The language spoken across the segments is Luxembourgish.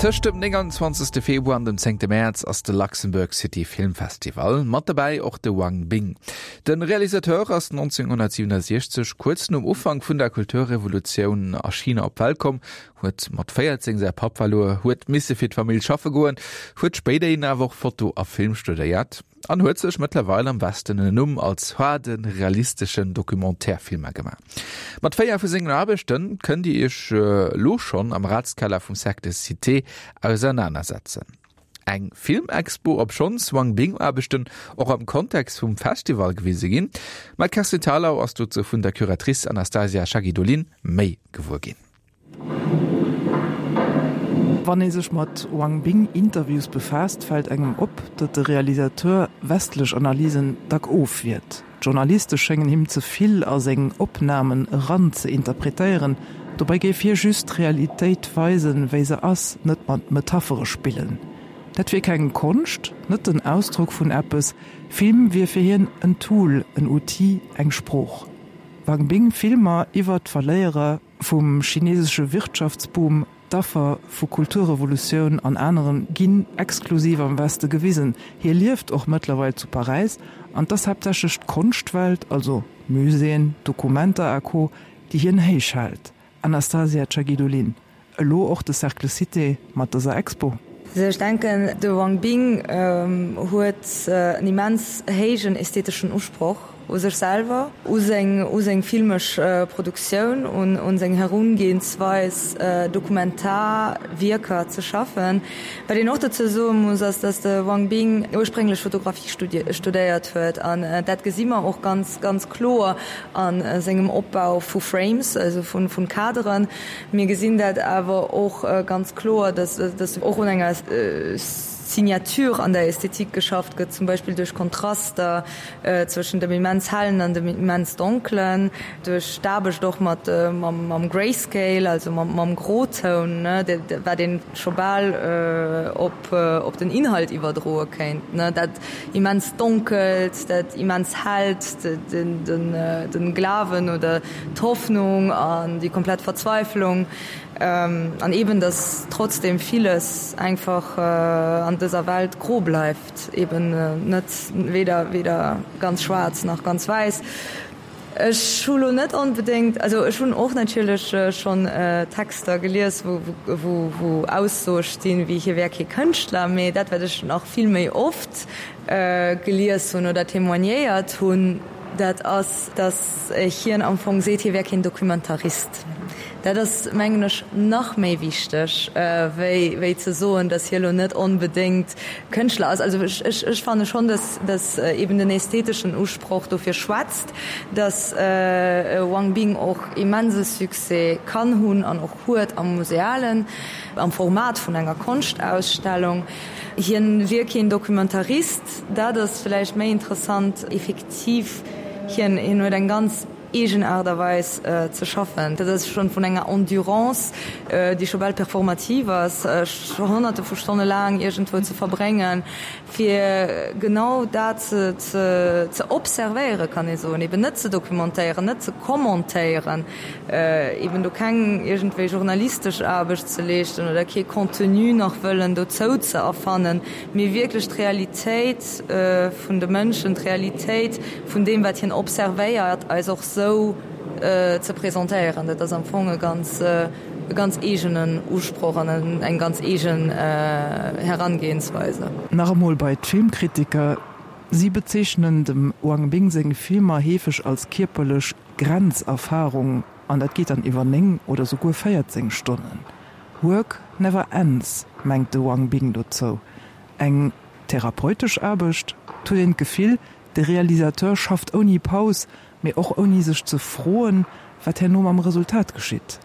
Tëscht dem 29. Februar an dem 10. Mäerz ass de Luxembourg City Film Festival. Mat dobäi och de Wang Bing. De Realisateur ass 1967, kuerz nom Ufank vun der Kulturrevolutioun a China op d'Welt komm, huet mat 14 säi Papp verluer, huet misse fir d'Famill schaffe goen, huet spéiderhin awer och Foto a Film studéiert an huet sech mëttlerweil am Westen en Numm als haarde realisteschen Documentaire-Filmer gemaach. Mat 4 vu sengen Aarbechte kënnt Dir Iech elo schonn am Ratskeller vum Cercle Cité ausernanersetzen. Eng Filmexpo, obschonns Wang Bing Aarbechten och am Kontext vum Festival gewise ginn. Ma d'Kerstin Thalau ass dozou vun der Curatrice Anastasia Chagidulin méi gewuer ginn. Wann ee sech mat Wang Bing Interviews befaasst, fält engem op, datt de Realisateur westlech Analysen dack ofwiert. D'Journaliste schéngen him ze vill a seng Opnamen eran ze interpretéieren. Dobäi géif hie just d'Realitéit weisen, wéi se ass, net mat Metaphere spillen. Dat wier keng Konscht, net den Ausdrock vun eppes. Film wier fir hien en Tool, en Outil, eng Sprooch. Wang Bing Filmer iwwer d'Verléierer vum chinesesche Wirtschaftsboom, D'Affer vu Kulturrevolutioun an aneren ginn exklusiv am Weste gewisen. Hie lieft och mëttlerweil zu Paräis an 't ass haaptsächlech d'Konschtwelt, also Muséeën, Documenta a Co, déi hien héich hält. Anastasia Chagidulin, Elo och de Cercle Cité mat dëser Expo? Also ech denken, de Wang Bing huet en immens héijen ästheteschen Usproch u sech selwer, u seng u seng filmesch Produktioun, un un seng Herungehensweis Dokumentarwierker ze schaffen. Wat een och dozou soe muss, ass, datt de Wang Bing ursprénglech Fotografie studéiert huet an dat gesi mer och ganz ganz kloer a sengem Opbau vu Frames, also vu vu Kaderen. Mir gesinn dat awer och ganz kloer, dass och un enger Signature an der Ästhetik geschafft gëtt, zum Beispill duerch Kontraster zwëschen dem immens Hellen an dem immens Donkelen, duerch d'Aarbecht och mat mam Grayscale, also mam Grotoun, wat ee scho bal op den Inhalt iwwerdroe kéint, dat immens Donkelt, dat immens Hellt, de Glawen oder d'Hoffnung an déi komplett Verzweiflung an eben dass trotzdem villes einfach an dëser Welt gro bleift, eben net weder weder ganz schwaarz nach ganz wäiss. Ech hu lo net onbedéngt, also ech hunn och natierlech schonn Texter gelies wou wou wou Aussoe stinn wéi hie wär kee Kënschtler, mee dat wat ech nach vill méi oft gelies hunn oder témoignéiert hunn, Dat ass, datt hien am Fong seet, hie wär keen Dokumentarist. Dat ass, mengen ech, nach méi wichteg, wéi, wéi ze soen, datt hie lo net onbedéngt Kënschtler ass. Also ech, ech fanne schonn, datt, datt eben den ästheteschen Usproch dofir schwätzt, datt Wang Bing och immense Succès kann hunn an och huet am Musealen, am Format vun enger Konschtausstellung. Hien wier keen Dokumentarist. Dat ass vläicht méi interessant. Effektiv, hien huet eng ganz eegen Aart a Weis ze schaffen. Dat ass schonn vun enger Endurance, déi scho bal performativ ass, honnerte vu Stonne laang iergendwou ze verbréngen, fir genau dat ze observéieren, kann ee soen, eben net ze documentéieren, net ze commentéieren, eben do keng iergendwéi journalistesch Aarbecht ze leeschten oder kee Contenu nach wëllen dozou ze erfannen, mee wierklech d'Realitéit vun de Mënschen, d'Realitéit vun deem, wat hien observéiert, eis och sou ze presentéieren. Dat ass am Fong e ganz, e ganz eegenen Usproch an eng ganz eegen Herangehensweise. Nach emol bei d'Filmkritiker, Si bezeechnen dem Wang Bing seng Filmer heefeg als kierperlech Grenzerfarung, an dat geet dann iwwer 9 oder souguer 14 Stonnen. Work never ends, mengt de Wang Bing dozou. Eng therapeutesch Aarbecht? 't huet een d'Gefill, de Realisateur schafft ouni Paus, mee och ouni sech ze froen, wat herno mam Resultat geschitt.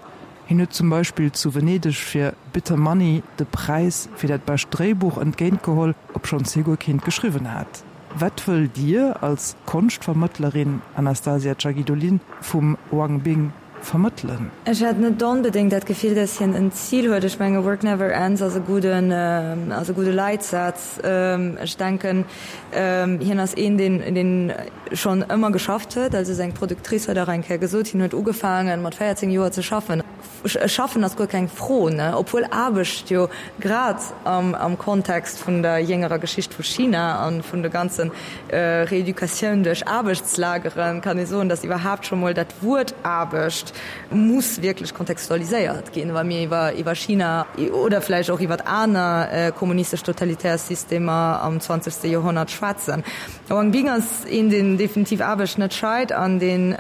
Hien huet zum Beispill zu Venedeg fir Bitter Money de Präis fir dat bescht Dréibuch entgéintgeholl, obschonns hie guer keent geschriwwen hat. Wat wëllt Dir als Konschtvermëttlerin, Anastasia Chagidulin, vum Wang Bing vermëttelen? Ech hat net onbedéngt dat Gefill, dass hien en Zil huet. Ech menge Work never ends ass e gudden, ass e gudde Leitsaz. Ech denken, hien ass een, deen, deen schonn ëmmer geschafft huet. Also seng Productrice huet och eng Kéier gesot, hien huet ugefaange mat 14 Joer ze schaffen. Schaffen ass guer keng Fro, ne? Obwuel Aarbecht jo grad am Kontext vun der jéngerer Geschicht vu China a vun de ganze Reeducatioun duerch Aarbechtslageren, kann ee soen, datt iwwerhaapt scho mol dat Wuert Aarbecht muss wierklech kontextualiséiert ginn, wa mir iwwer China oder vläicht och iwwer aner kommunistesch totalitär Systemer am zwanzegste Joerhonnert schwätzen. Wang Bing ass een, deen definitiv Aarbecht net scheit an deen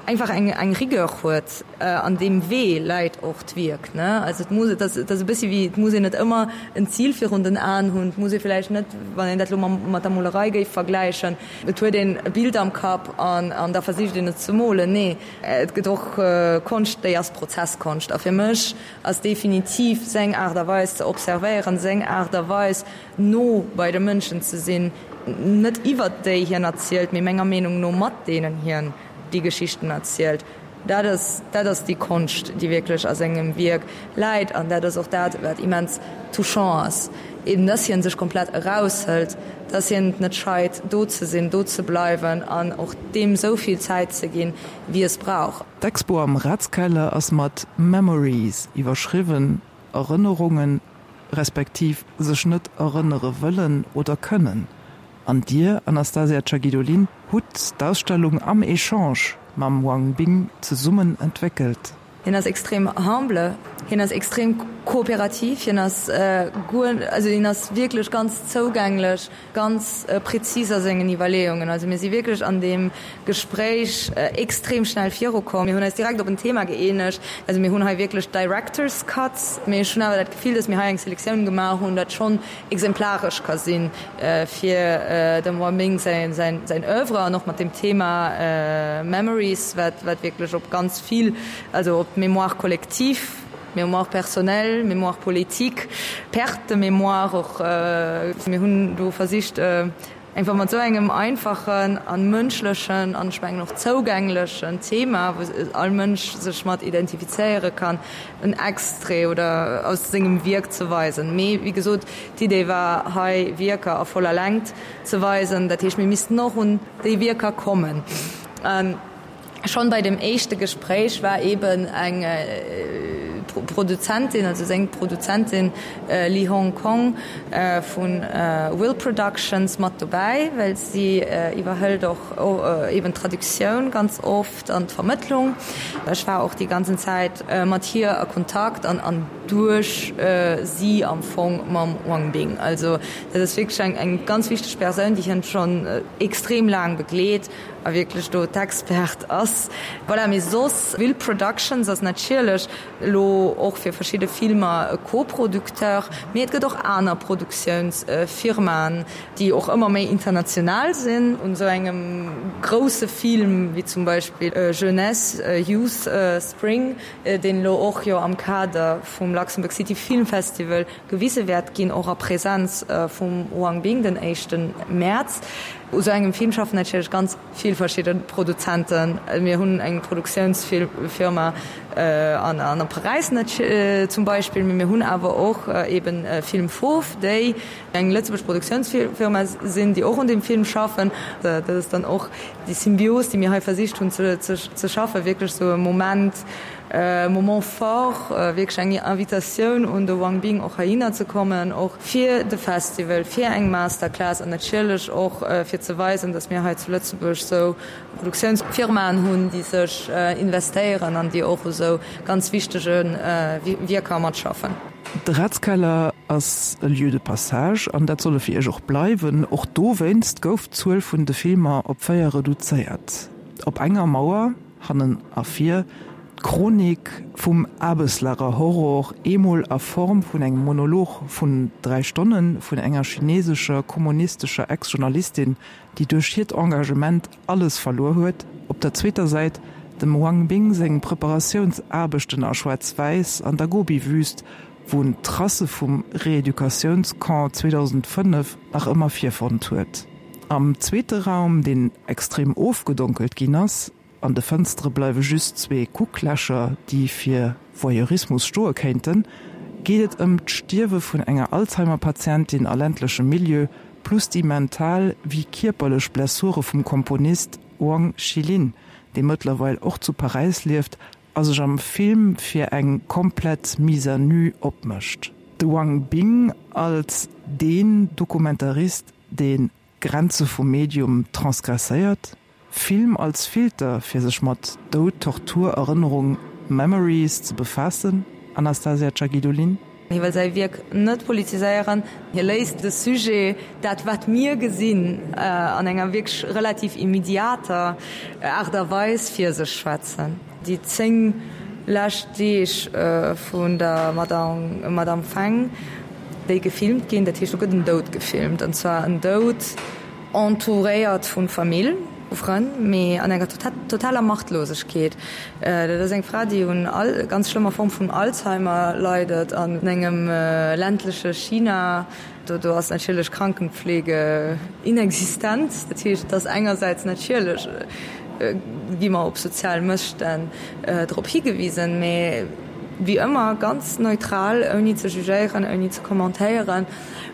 einfach eng eng Rigueur huet. An deem Wee läit och d'Wierk, ne? Also et muss, et ass, et ass e bëssi wéi, et muss een net ëmmer en Zil virun den Aen hunn, et muss ee vläicht net, wann een dat elo mam mat der Molerei géif vergläichen, et huet een e Bild am Kapp an an da versicht een et ze molen. Nee, et gëtt och Konscht, déi ass Prozesskonscht. A fir mech ass definitiv seng Aart a Weis ze observéieren, seng Aart a Weis no bei de Mënschen ze sinn, net iwwert déi hien erzielt, mee menger Meenung no mat deenen hien déi Geschichten erzielt. Dat ass, dat ass déi Konscht, déi wierklech a sengem Wierk läit. An dat ass och dat, wat immens touchant ass, eben dass hien sech komplett eraushëlt, dass hien et net scheit, do ze sinn, do ze bleiwen an och deem esou vill Zäit ze ginn, wéi es brauch. D'Expo am Ratskeller ass mat Memories iwwerschriwwen, Erënnerungen, respektiv sech net erënnere wëllen oder kënnen. An Dir, Anastasia Chagidulin, hutt d'Ausstellung am Echange mam Wang Bing zesummen entwéckelt. Hien ass extrem humble, hien ass extrem kooperativ, hien ass guer, also hien ass wierklech ganz zougänglech, ganz prezis a sengen Iwwerleeungen. Also mir si wierklech an deem Gespréich extrem schnell virukomm. Mir hunn eis direkt op en Thema gëeenegt. Also mir hunn hei wierklech Director's Cuts, mee ech hunn awer dat Gefill, datt mir hei eng Selektioun gemaach hunn, dat schonn exemplaresch ka si fir dem Wang Bing säin Oeuvre an och mat dem Thema Memories, wat wierklech op ganz vill, also op d'Mémoire collective, Mémoire personnelle, Mémoire politique, Perte de mémoire och. Mir hunn do versicht, Einfach mat esou engem einfachen an mënschlechen an ech mengen och zougänglechen Thema, wou all Mënsch sech mat identifizéiere kann, en Extrait oder aus sengem Wierk ze weisen. Mee wéi gesot, d'Idee war hei Wierker a voller Längt ze weisen. Dat heescht, mir missten och un déi Wierker kommen. Schonn bei dem éischte Gespréich war eben eng Produzentin, also seng Produzentin Li Hong Kong vu Will Productions mat dobäi, well si iwwerhëlt och eben d'Traductioun ganz oft an d'Vermëttlung. Ech war och déi ganzen Zäit mat hir a Kontakt an an duerch si am Fong mam Wang Bing. Also dat ass wierklech eng ganz wichteg Persoun, déi hien schonn extrem laang begleet. A wierklech do d'Expert ass. Voilà, mee soss, Will Productions ass natierlech elo och fir verschidde Filmer e Co-Producteur, mee et gëtt och aner Produktiounsfirmaen, déi och ëmmer méi international sinn. Un esou engem grousse Film wéi zum Beispill Jeunesse, Youth, Spring, deen elo och jo am Kader vum Luxembourg City Film Festival gewise wäert ginn, och a Präsenz vum Wang Bing den éischte Mäerz. U sou engem Film schaffen natierlech ganz vill verschidde Produzenten. Mir hunn eng Produktiounsfirma an a Paräis zum Beispill, mee mir hunn awer och eben Film Fauve, déi eng lëtzebuergesch Produktiounsfirma sinn, déi och un deem Film schaffen. Dat ass dann och déi Symbios, déi mir hei versicht hunn ze schaffen, wierklech sou e Moment, Moment fort, wierklech eng Invitatioun un de Wang Bing och heihinner ze kommen, och fir de Festival, fir eng Masterclass an natierlech och fir ze weisen, datt mir hei zu Lëtzebuerg esou Produktiounsfirmaen hunn, déi sech investéieren an déi och u sou ganz wichtege Wierker matschaffen. De Ratskeller ass e Lieu de passage an dat soll e fir Iech och bleiwen. Och dowéinst gouf d'Zuel vun de Filmer op 4 reduzéiert. Op enger Mauer Hannen a vir, d'Chronik vum Aarbeslager Horror, eemol a Form vun engem Monolog vun 3 Stonne vun enger chinesescher kommunistescher Ex-Journalistin, déi duerch hiert Engagement alles verluer huet, op der zweeter Säit dem Wang Bing seng Preparatiounsaarbechten a Schwaarz-Wäiss an der Gobi-Wüst, wou en d'Tracë vum Reeducatiounscamp 2005 nach ëmmer virfonnt huet. Am zweete Raum, deen extrem ofgedonkelt ginn ass, an de Fënstere bleiwe just zwee Kucklächer, déi fir Voyeurismus stoe kéinten, geet et ëm d'Stierwe vun enger Alzheimer-Patientin a ländlechem Milieu, plus déi mental wéi kierperlech Blessure vum Komponist Wang Xilin, dee mëttlerweil och zu Paräis lieft. a sech am Film fir eng komplett Mise à nu opmécht. De Wang Bing als deen Dokumentarist, deen d'Grenze vum Medium transgresséiert, Film als Filter fir sech mat Doud, Tortur, Erënnerung, Memories ze befaassen, Anastasia Chagidulin. Hie wëll säi Wierk net politiséieren, hie léisst de Sujet, dat wat mir gesinn, an enger wierklech relativ immediater Aart a Weis fir sech schwätzen. Déi 10 lescht Deeg vun der Madame Feng, déi gefilmt ginn, dat heescht do gëtt en Doud gefilmt, an zwar en Doud, Entouréiert vu Famill, vu Frënn, mee an enger totaler Machtlosegkeet. Dat ass eng Fra, déi un ganz schlëmmer Form vun Alzheimer leidet an engem ländleche China. Do ass natierlech Krankenpflege inexistent. Dat heescht, et ass engersäits natierlech gi mer op sozial Mësstänn drop higewisen, mee wéi ëmmer ganz neutral, ouni ze jugéieren, ouni ze kommentéieren.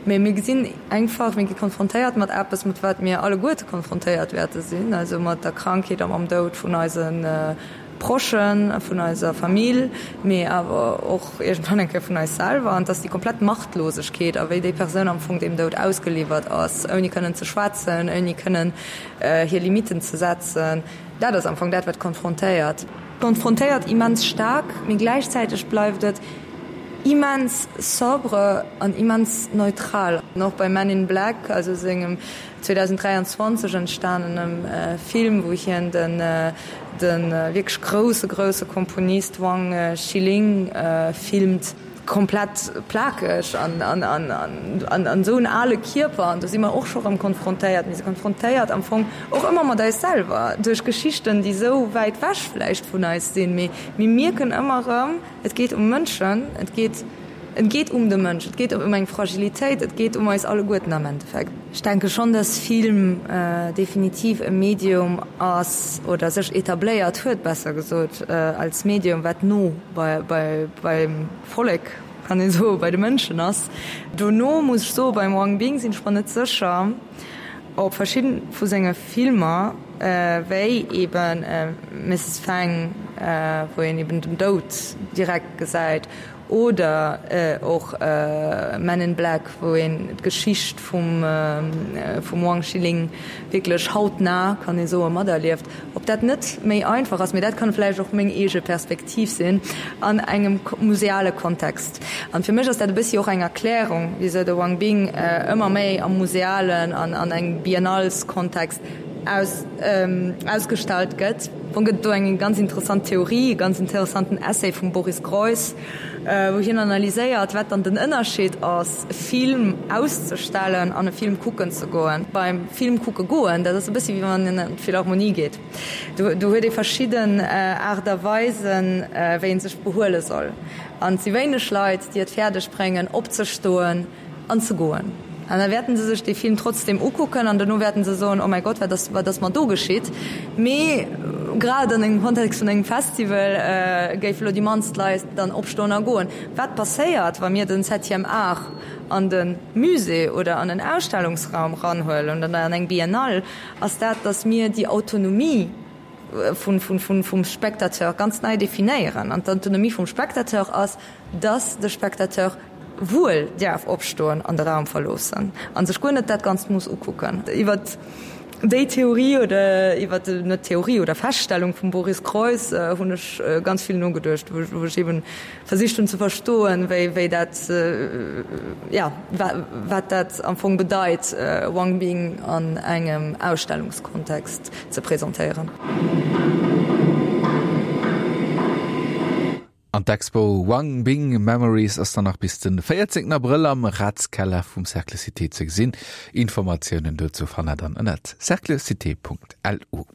Mee mir gesinn einfach, mir gi konfrontéiert mat eppes, mat wat mir alleguerte konfrontéiert wäerte sinn, also mat der Krankheet a mam Doud vun eise Prochen, vun eiser Famill, mee awer och iergendwann eng Kéier vun eis selwer. An et ass déi komplett Machtlosegkeet a wéi déi Persoun am Fong deem Doud ausgeliwwert ass, ouni kënnen ze schwätzen, ouni kënnen hir Limitten ze setzen. Dat ass am Fong dat, wat konfrontéiert. Konfrontéiert immens staark, mee gläichzäiteg bleift et immens sobre an immens neutral. An och bei Men in Black, also sengem 2023 entstanenem Film, wou hien den de wierklech grousse, grousse Komponist Wang Xiling filmt, komplett plakeg an an esou en ale Kierper. An do si mer och scho rëm konfrontéiert. Mir si konfrontéiert am Fong och ëmmer mat eis selwer, duerch Geschichten, déi esou wäit wech vläicht vun eis sinn, mee mir mierken ëmmer erëm, Et geet um Mënschen, et geet, et geet um de Mënsch, et geet ëm eng Fragilitéit, et geet um eis alleguerten am Endeffekt. Ech denke schonn, dass Film definitiv e Medium ass oder sech etabléiert huet, besser gesot, als Medium, wat no bei, bei, beim Vollek, kann ee soen, bei de Mënschen ass. Dono muss ech soen, beim Wang Bing sinn ech mer net sécher, ob verschidden vu senge Filmer, wéi eben Mrs. Fang, wou een eben den Doud direkt gesäit, oder och Men in Black, wou een d'Geschicht vum vum Wang Xiling wierklech hautnah, kann ee soen, materlieft, ob dat net méi einfach ass, mee dat kann vläicht och meng eege Perspektiv sinn, an engem museale Kontext. An fir mech ass dat e bëssi och eng Erklärung, wisou de Wang Bing ëmmer méi am musealen an an engem Biennaleskontext aus ausgestallt gëtt. Am Fong gëtt et do eng ganz interessant Theorie, e ganz interessanten Essay vum Boris Groys, wou hien analyséiert, wat dann den Ënnerscheed ass, e Film auszestellen an e Film kucken ze goen. Beim Film kucke goen, dat ass e bëssi wéi wann een an d'Philharmonie geet. Do do huet ee verschidden Aart a Weisen, wéi ee sech behuele soll. An et si wéineg Leit, déi et fäerdeg bréngen, opzestoen an ze goen. An da wäerten se sech dee Film trotzdem ukucken an dono wäerten se soen, Oh mäi Gott, wat ass, wat ass mer do geschitt? Mee grad an engem Kontext vun engem Festival géife lo déi mannst Leit dann opstoen a goen. Wat passéiert, wa mir den Septième Art an de Musée oder an en Ausstellungsraum ranhuelen oder an eng Biennale, ass dat, datt mir déi Autonomie vum Spectateur ganz nei definéieren. An d'Autonomie vum Spectateur ass, datt de Spectateur wuel däerf opstoen an de Raum verloossen a sech guer net dat Ganzt muss ukucken. Iwwer déi Theorie oder iwwer net Theorie oder Feststellung vum Boris Groys hunn ech ganz vill nogeduecht, wou ech eben versicht hunn ze verstoen, wéi wéi dat jo wat dat am Fong bedeit, Wang Bing an engem Ausstellungskontext ze presentéieren. An d'Expo Wang Bing Memories ass dann nach bis den 14 Abrëll am Ratskeller vum Cercle Cité ze gesinn. Informatiounen dozou fannt der dann ënnert cerclecité.lu.